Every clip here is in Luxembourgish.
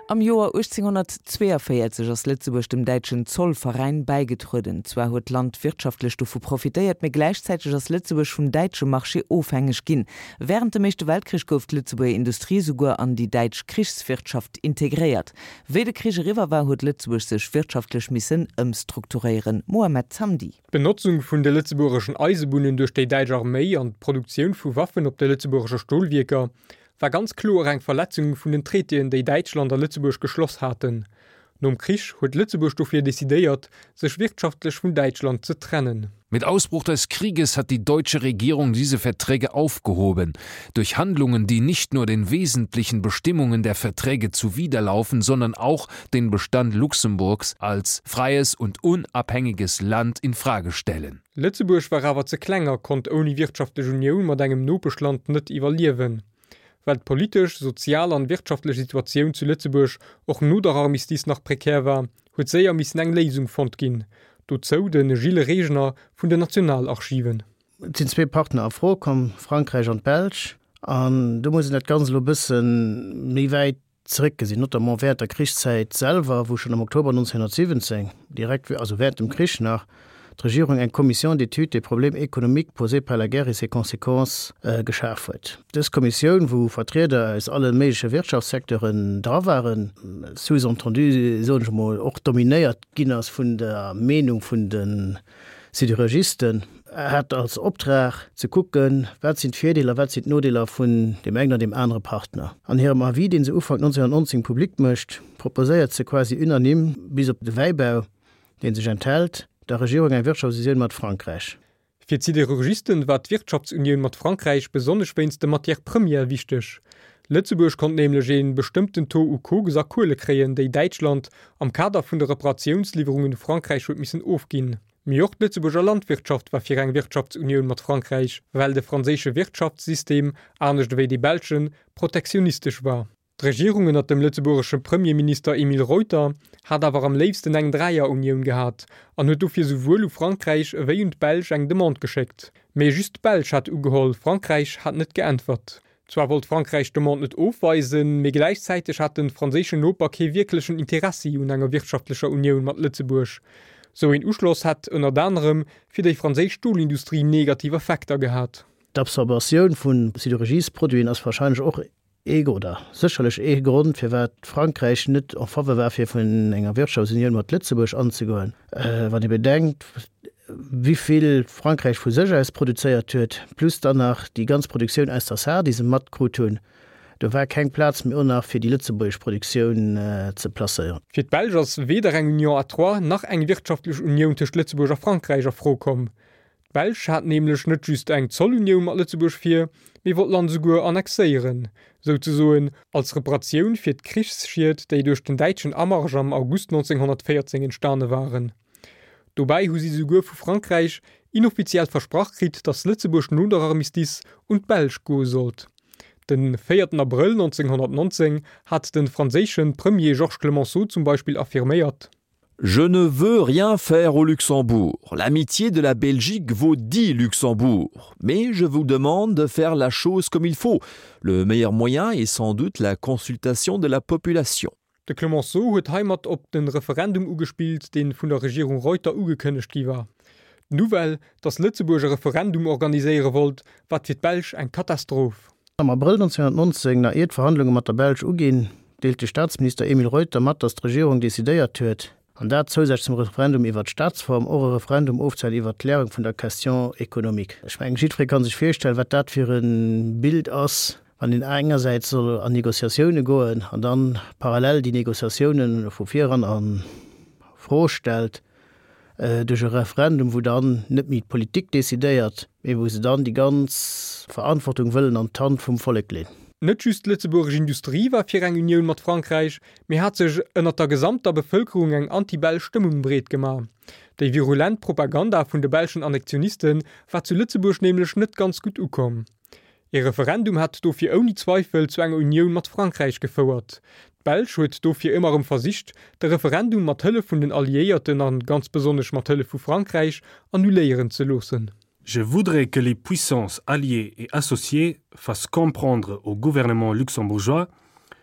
Am Joer 1842 ass Lëtzebuerg dem däitschen Zollveräin bäigetrueden. Zwar huet d'Land wirtschaftlech dovu profitéiert, mee gläichzäiteg ass Lëtzebuerg vum däitsche Marché ofhängeg ginn. Wärend dem Éischte Weltkrich gouf d'Lëtzebuerger Industrie souguer an déi däitsch Krichswirtschaft integréiert. Wéi de Krich eriwwer war, huet Lëtzebuerg sech wirtschaftlech missen ëmstrukturéieren. Mohamed Zamdi. D'Benotzung vun de lëtzebuergeschen Eisebunnen duerch déi däitsch Arméi an d'Produktioun vu Waffen op de lëtzebuergesche Stolwierker war ganz kloer eng Verletzung vun den Traitéen, déi Däitschland a Lëtzebuerg geschloss haten. Nom Krich huet Lëtzebuerg dofir decidéiert, sech wirtschaftlech vun Däitschland ze trennen. Mit Ausbruch des Krieges hat die deutsche Regierung diese Verträge aufgehoben, durch Handlungen, die nicht nur den wesentlichen Bestimmungen der Verträge zuwiderlaufen, sondern auch den Bestand Luxemburgs als freies und unabhängiges Land in Frage stellen. Lëtzebuerg war awer ze kleng a konnt ouni wirtschaftlech Unioun mat engem Nopeschland net iwwerliewen. Well d'politesch, sozial an wirtschaftlech Situatioun zu Lëtzebuerg och no der Armistice nach prekär war, huet séier missen eng Léisung fonnt ginn. Dozou de Gilles Regner vun den Nationalarchiven. Et sinn zwee Partner a Fro komm, Frankräich an d'Belsch. An do muss een dat Ganzt elo e bësse méi wäit zeréckgesinn, notamment während der Krichszäit selwer, wou schonn am Oktober 1917, direkt, also während dem Krich nach, d'Regierung eng Commission d'étude des problèmes économiques posés par la guerre et ses conséquences geschaf huet. Dës Kommissioun, wou Vertrieder aus alle méigleche Wirtschaftssecteuren dra waren, sous-entendu, soen ech emol, och dominéiert ginn ass vun der Meenung vun de Siderurgisten hat als Optrag ze kucken, wat sinn d'Virdeeler, wat sinn d'Nodeeler vun deem engen an deem anere Partner. An hirem Avis, dee se Ufank 1919 public mécht, proposéiert se quasi unanime, bis op de Wäibau, dee sech enthält, der Regierung eng Wirtschaftsunioun mat Frankräich. Fir d'Siderurgisten war d'Wirtschaftsunioun mat Frankräich besonnesch wéinst de Matières premières wichteg. Lëtzebuerg konnt nämlech ee bestëmmten Taux u Koks a Kuele kréien, déi Däitschland am Kader vun de Reparatiounslieferungen u Frankräich huet missen ofginn. Mee och d'Lëtzebuerger Landwirtschaft war fir eng Wirtschaftsunioun mat Frankräich, well de franséische Wirtschaftssystem, anescht ewéi dee belschen, protektionistesch war. D'Regierung ënnert dem lëtzebuergesche Premierminister Emile Reuter hat awer am léifsten eng Dräierunioun gehat an huet dofir souwuel u Frankräich ewéi un d'Belsch eng Demande geschéckt. Mee just d'Belsch hat ugeholl, Frankräich hat net geäntwert. Zwar wollt Frankräich d'Demande net ofweisen, mee gläichzäiteg hat de franséischen Noper kee wierklechen Interessi un enger wirtschaftlecher Unioun mat Lëtzebuerg. Sou een Uschloss hätt ënnert anerem fir déi franséisch Stolindustrie negativ Effekter gehat. D'Absorbatioun vu Siderurgiesproduiten ass warscheinlech och Ee oder sécherlech ee Grond, firwat Frankräich net en faveur war, fir vun enger Wirtschaftsunioun mat Lëtzebuerg anzegoen, wann ee bedenkt, wivill Frankräich vu sech aus produzéiert huet, plus dann nach déi ganz Produktioun aus der Saar, déi se matkrut hunn. Do war keng Plaz méi och nach, fir déi lëtzebuergesch Produktioun ze placéieren. Fir d'Belsch ass weder eng Union à trois nach eng wirtschaftlech Unioun tëscht Lëtzebuerg a Frankräich a Fro komm. D'Belsch hat nämlech net just eng Zollunioun mat Lëtzebuerg vir, mee wollt d'Land esouguer annexéieren, souzesoen als Reparatioun fir d'Krichsschied, déi duerch den däitschen Amarsch am August 1914 entstane waren. Dobäi hu si souguer vu Frankräich inoffiziell versprach kritt, datt Lëtzebuerg no der Armistice un d'Belsch goe sollt. Den 4 Abrëll 1919 hat de franséische Premier Georges Clemenceau zum Beispill affirméiert. Je ne veux rien faire au Luxembourg. L'amitié de la Belgique vaut dit Luxembourg. Mais je vous demande de faire la chose comme il faut. Le meilleur moyen est sans doute la consultation de la population. De Clemenceau huet heimat op de Referendum ugespillt, dee vun der Regierung Reuter ugekënnegt gi war. D'Nouvelle, datt Lëtzebuerg e Referendum organiséiere wollt, war fir d'Belsch eng Katastroph. Am Abrëll 1919, nach ier d'Verhandlunge mat der Belsch uginn, deelt de Staatsminister Emile Reuter mat, datt d'Regierung decidéiert huet, an dat zousätzlech zum Referendum iwwert d'Staatsform, och e Referendum ofzehalen iwwert d'Klärung vun der Question économique. Ech mengen, jiddweree ka sech virstellen, wat dat fir e Bild ass, wann een engersäits soll an Négociatioune goen an dann parallel déi Négociatioune vu viran a Fro stellt. duerch e Referendum, wou dann net méi d'Politik decidéiert, mee wou se dann déi ganz Verantwortung wëllen an d'Hand vum Vollek leen. Net just d'lëtzebuergesch Industrie war fir eng Unioun mat Frankräich, mee hat sech ënnert der gesamter Bevëlkerung eng anti-belsch Stëmmung breet gemaach. Déi virulent Propaganda vun de belschen Annexioniste war zu Lëtzebuerg nämlech net ganz gutt ukomm. Ee Referendum hätt dofir ouni Zweifel zu enger Unioun mat Frankräich gefouert. D'Belsch huet dofir ëmmer erëm versicht, de Referendum mat Hëllef vun den Alliéierten an ganz besonnesch mat Hëllef vu Frankräich annuléieren ze loossen. Je voudrais que les puissances alliées et associées fassent comprendre au gouvernement luxembourgeois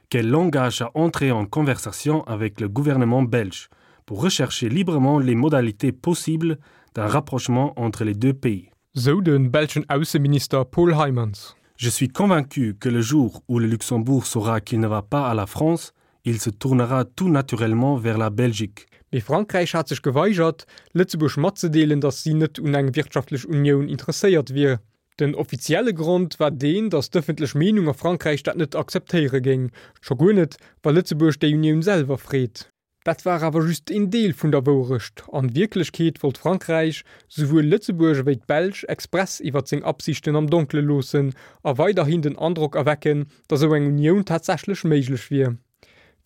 qu'elle l'engage à entrer en conversation avec le gouvernement belge pour rechercher librement les modalités possibles d'un rapprochement entre les deux pays. Sou de belschen Ausseminister Paul Heymans. Je suis convaincu que le jour où le Luxembourg saura qu'il ne va pas à la France, il se tournera tout naturellement vers la Belgique. Mee Frankräich hat sech geweigert, Lëtzebuerg matzedeelen, datt si net un eng wirtschaftlech Unioun interesséiert wier. Den offizielle Grond war deen, datt d'ëffentlech Meenung a Frankräich dat net akzeptéiere géing, scho guer net, wa Lëtzebuerg déi Unioun selwer freet. Dat war awer just een Deel vun der Wouerecht. An Wierklechkeet wollt Frankräich souwuel Lëtzebuerg ewéi d'Belsch express iwwert seng Absichten am Donkele loossen a weiderhin den Androck erwecken, datt esou eng Unioun tatsächlech méiglech wier.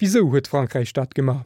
Wisou huet Frankräich dat gemaach?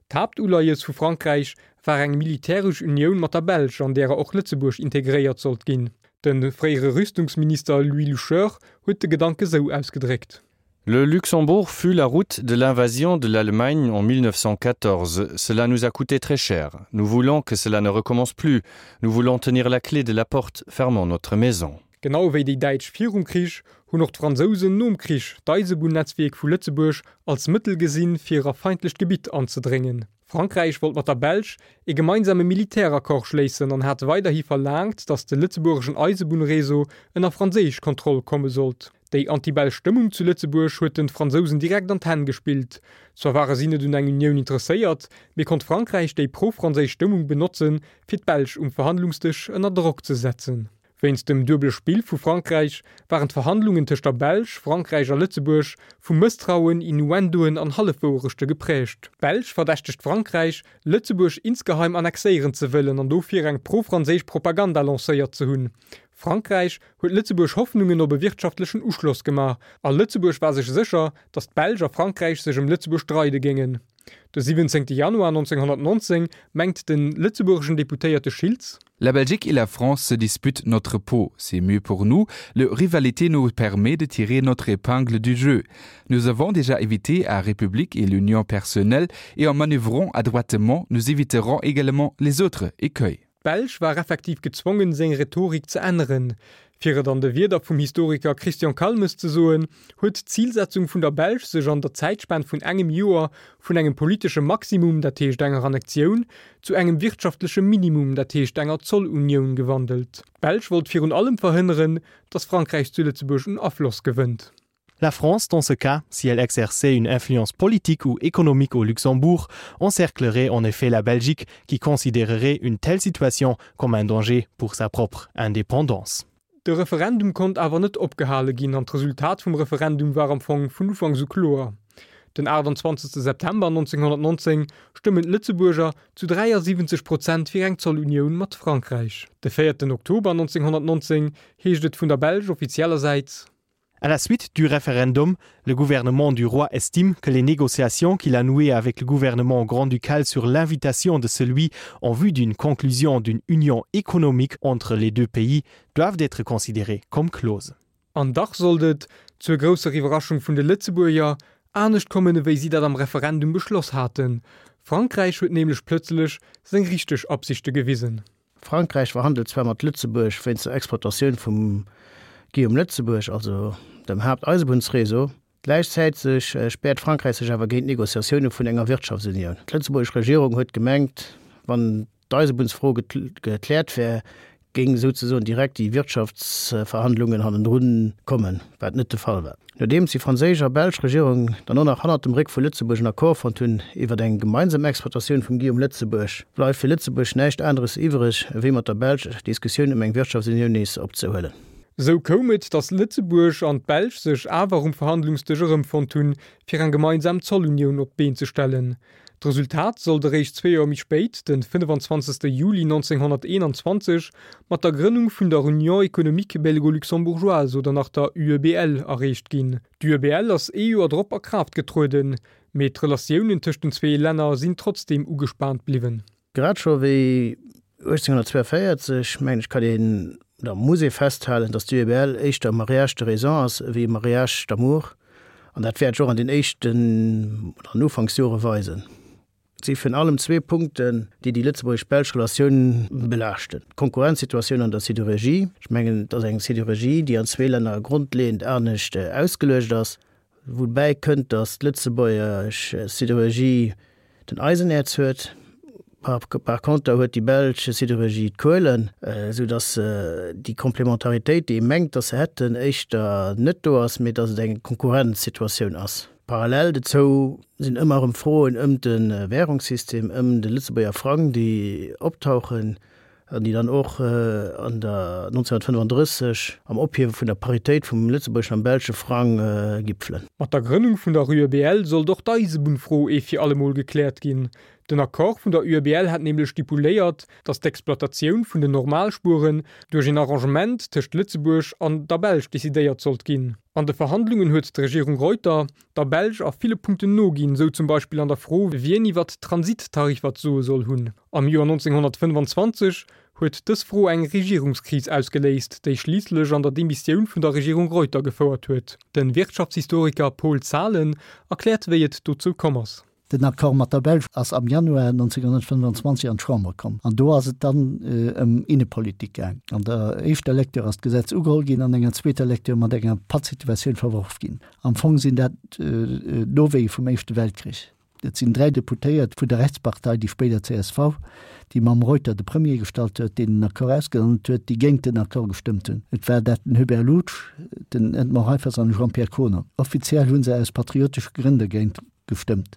D'Haaptuleies vu Frankräich war eng militäresch Unioun mat der Belsch, an därer och Lëtzebuerg integréiert sollt ginn. De fréiere Rüstungsminister Louis Loucheur huet de Gedanke sou ausgedréckt. Le Luxembourg fut la route de l'invasion de l'Allemagne en 1914. Cela nous a coûté très cher. Nous voulons que cela ne recommence plus. Nous voulons tenir la clé de la porte fermant notre maison. Genau wéi déi Däitsch virum Krich hunn och d'Fransousen nom Krich d'Eisebunnetzwierk vu Lëtzebuerg als Mëttel gesinn, fir a feindlecht Gebitt anzedréngen. Frankräich wollt mat der Belsch ee gemeinsame Militäraccord schléissen an hat weiderhi verlaangt, datt de lëtzebuergeschen Eisebunnreseau ënner franséisch Kontroll komme sollt. Déi anti-belsch Stëmmung zu Lëtzebuerg huet den Fransousen direkt an d'Hänn gespillt. Zwar ware si net un eng Unioun interesséiert, mee konnt Frankräich déi pro-franséisch Stëmmung benotzen, fir d'Belsch um Verhandlungsdësch ënner Drock ze setzen. Wéinst dem duebele Spill vu Frankräich waren d'Verhandlungen tëscht der Belsch, Frankräich a Lëtzebuerg vu Mësstrauen, Innuendoen an Hallefwouerechte geprägt. D'Belsch verdächtegt Frankräich, Lëtzebuerg insgeheim annexéieren ze wëllen an dofir eng pro-franséisch Propaganda lancéiert ze hunn. Frankräich huet Lëtzebuerg Hoffnungen op e wirtschaftlechen Uschloss gemaach a Lëtzebuerg war sech sécher, datt d'Belsch a Frankräich sech ëm Lëtzebuerg streide géingen. De 17. Januar 1919 mengt de lëtzebuergeschen Deputéierte Schiltz. La Belgique et la France se disputent notre peau. C'est mieux pour nous. Le rivalité nous permet de tirer notre épingle du jeu. Nous avons déjà évité à République et l'Union personnelle et en manœuvrant adroitement, nous éviterons également les autres écueils. D'Belsch war effektiv gezwongen, seng Rhetorik ze änneren. Fir et an de Wierder vum Historiker Christian Calmes ze soen, huet d'Zilsetzung vun der Belsch sech an der Zäitspan vun engem Joer vun engem politesche Maximum, dat heescht enger Annektioun, zu engem wirtschaftleche Minimum, dat heescht enger Zollunioun, gewandelt. D'Belsch wollt virun allem verhënneren, datt Frankräich zu Lëtzebuerg un Afloss gewënnt. La France, dans ce cas, si elle exerçait une influence politique ou économique au Luxembourg, encerclerait en effet la Belgique, qui considérerait une telle situation comme un danger pour sa propre indépendance. De Referendum konnt awer net opgehale ginn an d'Resultat vum Referendum war am Fong vun Ufanks u kloer. Den 28 September 1919 stëmmen d'Lëtzebuerger zu 73 Prozent fir eng Zollunioun mat Frankräich. De 4 Oktober 1919 heescht et vun der Belsch offizieller Säit. À la suite du référendum, le gouvernement du roi estime que les négociations qu'il a nouées avec le gouvernement grand-ducal sur l'invitation de celui en vue d'une conclusion d'une union économique entre les deux pays doivent être considérées comme closes. An dach sollt et, zur grousser Iwwerraschung vun de Lëtzebuerger, anescht kommen ewéi si dat am Referendum beschloss haten. Frankräich huet nämlech plëtzlech seng richteg Absichte gewisen. Frankräich verhandelt zwar mat Lëtzebuerg wéinst der Exploitatioun vum Guillaume Lëtzebuerg, also dem Haapteisebunnsréseau. Gläichzäiteg späert Frankräich sech awer géint Negociatioune vun enger Wirtschaftsunioun. D'lëtzebuergesch Regierung huet gemengt, wann d'Eisebunnsfro gekläert wär, géing souzesoen direkt déi Wirtschaftsverhandlungen hannendrun kommen, wat net de Fall war. Nodeems déi franséisch a belsch Regierung dann och nach hannert dem Réck vu Lëtzebuerg en Accord fonnt hunn iwwert eng gemeinsam Exploitatioun vum Guillaume Lëtzebuerg, bleift fir Lëtzebuerg näischt aneres iwwereg, ewéi mat der Belsch d'Diskussioun ëm eng Wirtschaftsunioun nees opzehuelen. Esou koum et, datt Lëtzebuerg an d'Belsch sech awer um Verhandlungsdësch erëmfonnt hunn, fir eng gemeinsam Zollunioun op d'Been ze stellen. D'Resultat sollt eréischt zwee Joer méi spéit, de 25. Juli 1921, mat der Grënnung vun der Union économique belgo-luxembourgeoise oder nach der UEBL erreecht ginn. D'UEBL ass ee Joer drop a Kraaft getrueden, mee d'Relatiounen tëscht den zwee Länner sinn trotzdeem ugespaant bliwwen. Grad scho wéi 1842, mengen ech, kann een, oder muss ee festhalen, datt d'UEBL éischter e Mariage de raison ass ewéi e Mariage d'amour. An dat wäert sech och an den éischten oder an Ufanksjore weisen. Et si virun allem zwee Punkten, déi déi lëtzebuergesch-belsch Relatioun belaaschten, D'Konkurrenzsituatioun an der Sidérurgie. Ech mengen, et ass eng Sidérurgie, déi an zwee Länner grondleeënd anescht ausgeluecht ass. Woubäi kënnt, datt d'lëtzebuergesch Sidérurgie den Eisenäerz huet, par conter huet déi belsch Sidérurgie d'Kuelen, esou datt déi Komplementaritéit, déi ee mengt, datt se hätten, éischter net do ass, mee datt et eng Konkurrenzsituatioun ass. Parallel dozou sinn ëmmer erëm Froen ëm de Währungssystem, ëm de Lëtzebuerger Frang, déi optauchen an déi dann och an der 1935 am Ophiewe vun der Paritéit vum lëtzebuergeschen am belsche Frang gipfelen. Mat der Grënnung vun der UEBL sollt och d'Eisebunnfro ee fir allemol gekläert ginn. Den Accord vun der UEBL hat nämlech stipuléiert, datt d'Exploitatioun vun den Normalspueren duerch een Arrangement tëscht Lëtzebuerg an der Belsch decidéiert sollt ginn. An de Verhandlungen huet d'Regierung Reuter der Belsch a ville Punkten noginn, sou zum Beispill an der Fro, wien iwwert d'Transittariffer d'Soe soll hunn. Am Joer 1925 huet dës Fro eng Regierungskris ausgeléist, déi schliisslech an der Demissioun vun der Regierung Reuter gefouert huet. De Wirtschaftshistoriker Paul Zahlen erkläert, wéi et dozou komm ass. Den Accord mat der Belsch ass am Januar 1925 an d'Chamber komm an do ass et dann ëm Innepolitik gaang. An der éischter Lecture ass d'Gesetz ugeholl ginn, an enger zweeter Lecture mat enger Pattsituatioun verworf ginn. Am Fong sinn dat d'Nowéie vum Éischte Weltkrich. Et sinn 3 Deputéiert vun der Rechtspartei, déi spéider csv, déi mam Reuter de Premier gestallt huet, deen den Accord ausgehandelt huet, déi géint den Accord gestëmmt hunn. Et war dat den Hubert Loutsch, den Edmond Reiffers an de Jean-Pierre Kohner. Offiziell hu se aus patriotesche Grënn dergéint gestëmmt,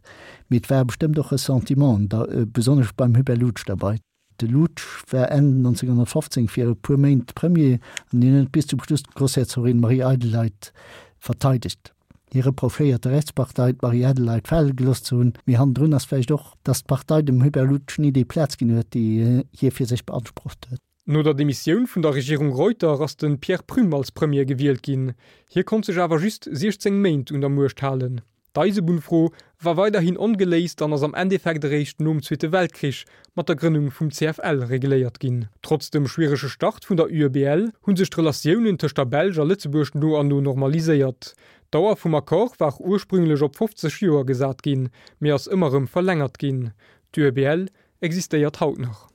mee et ware bestëmmt och Ressentimenten, da besonnesch beim Hubert Loutsch derbei. De Loutsch war Enn 1915 fir e puer Méint Premier an hien huet bis zum Schluss d'Groussherzogin Marie-Adelheid verteidegt. Hie reprochéiert der Rechtspartei, d'Marie-Adelheid fale gelooss ze hunn, mee hannendrun ass vläicht och, datt d'Partei dem Hubert Loutsch ni déi Plaz ginn huet, déi hie fir sech beansprucht huet. No der Demissioun vun der Regierung Reuter ass de Pierre Prüm als Premier gewielt ginn. Hie konnt sech awer just 16 Méint un der Muecht halen. D'Eisebunnfro war weiderhin ongeléist an ass am Endeffekt eréischt nom Zweete Weltkrich mat der Grënnung vum CFL regléiert ginn. Trotz dem schwierege Start vun der UEBL hu sech d'Relatiounen tëscht der Belsch a Lëtzebuerg no an no normaliséiert. D'Dauer vum Accord war ursprünglech op 50 Joer gesat ginn, mee ass ëmmer erëm verlängert ginn. D'UEBL existéiert haut nach.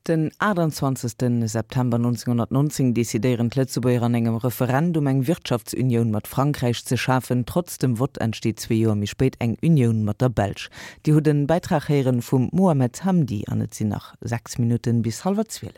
Den 28 September 1919 decidéieren d'Lëtzebuerger an engem Referendum eng Wirtschaftsunioun mat Frankräich ze schafen. Trotz dem Vott entsteet zwee Joer méi spéit eng Unioun mat der Belsch. Dir hutt en Bäitrag héieren vum Mohamed Hamdi an et sinn nach 6 Minutten bis hallwer 12.